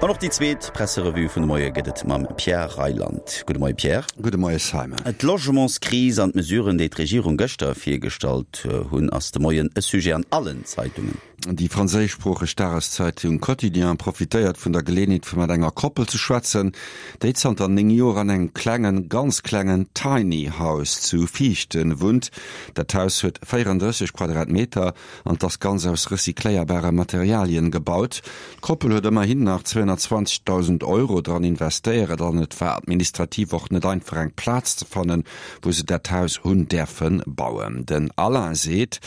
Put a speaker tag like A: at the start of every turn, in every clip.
A: An och déi zweet Presserevue vun de Moie gëtt et mam Pierre Reyland. Gudde Moie Pierre.
B: Gudde Moie Simon.
A: D'Logementskris an d'Mesuren, déi d'Regierung gëschter virgestallt hunn, ass de Moien e Sujet an allen Zeitungen.
B: Déi franséischsproocheg Dageszeitung Quotidien profitéiert vun der Geleeënheet fir mat enger Koppel ze schwätzen, déi zanter 9 Joer an engem klengen, ganz klengen Tiny House zu Viichten wunnt. Dat Haus huet 34 Quadratmeter an 't ass ganz aus recycléierbare Materialien gebaut. D'Koppel huet ëmmerhin nach 220.000 Euro dran investéieret an et war administrativ och net einfach eng Plaz ze fannen, wou se dat Haus hunn däerfe bauen. Den Alain seet,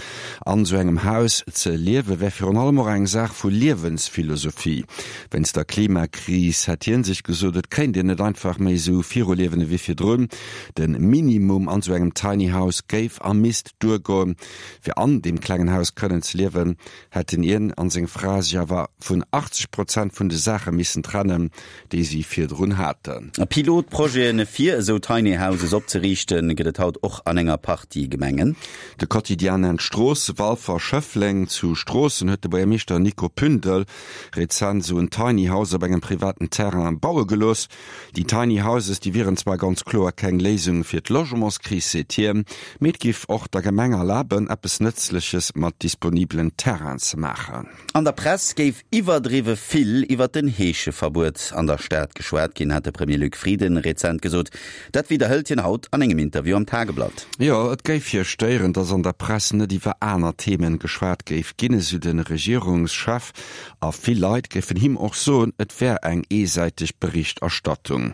B: an esou engem Haus ze liewe wär virun allem och eng Saach vu Liewensphilosophie. Wéinst der Klimakris hätt hien sech gesot, et kéint een net einfach méi esou viruliewen ewéi virdrun. De Minimum an esou engem Tiny House géif a misst duergoen. Fir an deem klengen Haus kënnen ze liewen, hätten hien an seng Fra sech awer vun 80 Prozent vun de Saache missen trennen, déi si virdrun haten.
A: Pilotprojete fir esou Tiny Houses opzeriichten, gëtt et haut och an enger Partie Gemengen.
B: De Quotidien nennt Stroosse, Walfer, Schëffleng. Zu Stroossen huet de Buergermeeschter Nico Pündel rezent esou en Tiny House op engem privaten Terrain baue gelooss. Déi Tiny Houses, déi wieren zwar ganz kloer keng Léisung fir d'Logementskris, seet hien, mee et giff och der Gemeng erlaben, eppes Nëtzleches mat disponibelen Terrainen ze maachen.
A: An der Press géif iwwerdriwwe vill iwwer den Heescheverbuet an der Stad geschwat ginn, hat de Premier Luc Frieden rezent gesot. Dat widderhëlt hien haut an engem Interview am Tageblatt.
B: Jo, et géif hie stéieren, datt an der Press net iwwer aner Themen geschwat géif ginn, esou de Regierungschef. A vill Leit géifen him och soen, et wär eng eesäiteg Berichterstattung.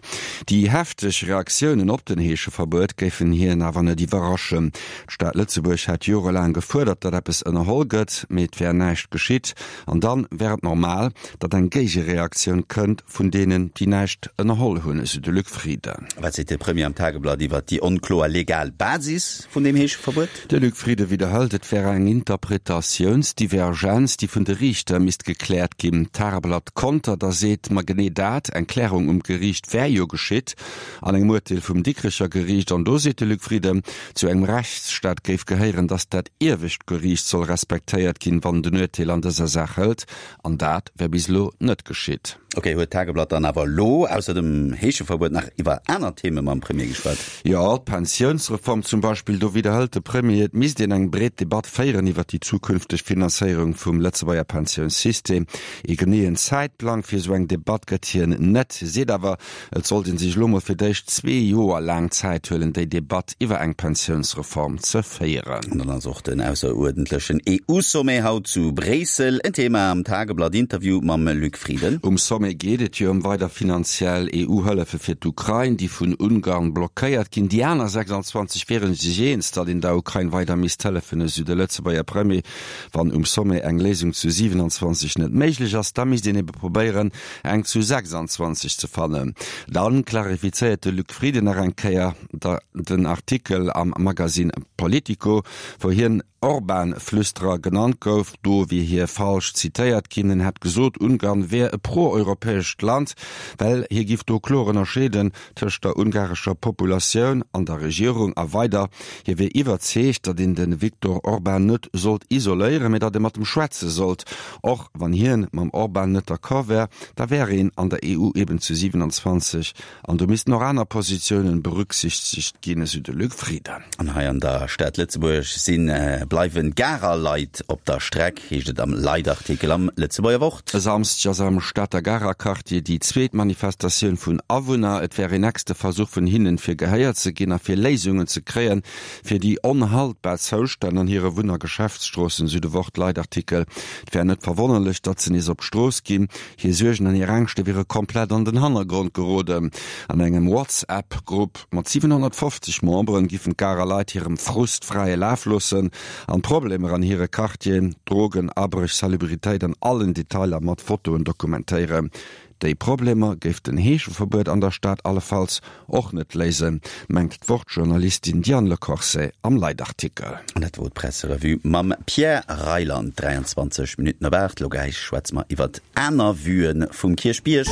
B: Déi hefteg Reaktiounen op den Heescheverbuet géifen hien awer net iwwerraschen. D'Stad Lëtzebuerg hätt jorelaang gefuerdert, datt eppes ënnerholl gëtt, mee et wär näischt geschitt. An dann wär et normal, datt eng Géigereaktioun kënnt vun deenen, déi näischt ënnerholl hunn, esou de Luc Frieden.
A: Wat seet de Premier am Tageblatt iwwer déi onkloer legal Basis vun deem Heescheverbuet?
B: De Luc Frieden widderhëlt, et wär eng Interpretatiounsdivergenz, déi vun de Riichter misst gekläert ginn. D'Tageblatt kontert a seet, ma genee dat, eng Klärung um Geriicht wär jo geschitt an engem Urteel vum Dikrecher Geriicht. An do seet de Luc Frieden, zu engem Rechtsstaat géif gehéieren, datt dat iewescht Geriicht soll respektéiert ginn, wann et en Urteel an dëser Saach hëlt. An dat wär bis elo net geschitt.
A: Ok, huet d'Tageblatt dann awer elo ausser dem Heescheverbuet nach iwwer aner Theme mam Premier geschwat?
B: Jo, d'Pensiounsreform zum Beispill. Do widderhëlt de Premier, et misst een eng breet Debatt féieren iwwer déi zukünfteg Finanzéierung vum Lëtzebuerger Pensiounssystem. Ee geneeën Zäitplang fir esou eng Debatt gëtt hien net, seet awer, Et sollt ee sech elo mol fir d'éischt zwee Joer laang Zäit huelen, déi Debatt iwwer eng Pensiounsreform ze féieren.
A: An dann ass och den ausseruerdentlechen EU-Sommet haut zu Bréissel en Thema am Tageblatt-Interview mam Luc Frieden.
B: Um Sommet geet et jo ëm weider finanziell EU-Hëllefe fir d'Ukrain, déi vun Ungarn blockéiert ginn. Déi aner 26 wiere sech eens, datt een der Ukrain weider misst hëllefen, esou de Lëtzebuerger Premier. Wann um Sommet eng Léisung zu 27 net méiglech ass, da misst een ebe probéieren, eng zu 26 ze fannen. Dann klarifizéiert de Luc Frieden nach eng Kéier den Artikel am Magazine Politico, wou hien Orban-Flüsterer genannt gouf. Do wier hie falsch zitéiert ginn. En hätt gesot, Ungarn wär e pro-europäescht Land, well hie giff do kloer ënnerscheeden tëscht der ungarescher Populatioun an der Regierung. A weider, hie wier iwwerzeegt, datt een de Viktor Orban net sollt isoléieren, mee datt ee mat em schwätze sollt. Och wann hien mam Orban net d'accord wär, da wär een an der EU eben zu 27 an do missten och aner Positiounen berücksichtegt ginn, esou de Luc Frieden.
A: An hei an der Stad Lëtzebuerg sinn bleiwen d'Garer Leit op der Streck, heescht et am Leitartikel am Lëtzebuerger Wort.
B: E Samsdeg ass am Stater Garer Quartier déi zweet Manifestatioun vun Awunner. Et wär een nächste Versuch vun hinnen, fir gehéiert ze ginn a fir Léisungen ze kréien, Fir déi onhaltbar Zoustänn an hire Wunn a Geschäftsstroossen, sou de Wort-Leitartikel. Et wär net verwonnerlech, datt se nees op d'Strooss ginn. Hir Suergen an hir Ängschte wiere komplett an den Hannergrond geroden. An engem Whatsapp-Grupp mat 750 Memberen giffen d'Garer Leit hirem Frust fräie Laf loossen an d'Problemer an hire Quartieren, Drogen, Abréch, Salubritéit an allen Detailer mat Fotoen dokumentéieren. Déi Problemer géif den Heescheverbuet an der Stad allefalls och net léisen, mengt d'Wort-Journalistin Diane Le Corset am Leitartikel.
A: An dat wor d'Presserevue mam Pierre Reyland. 23 Minutten op 8. Lo gläich schwätze mer iwwert aner Vuen vum Kierchbierg.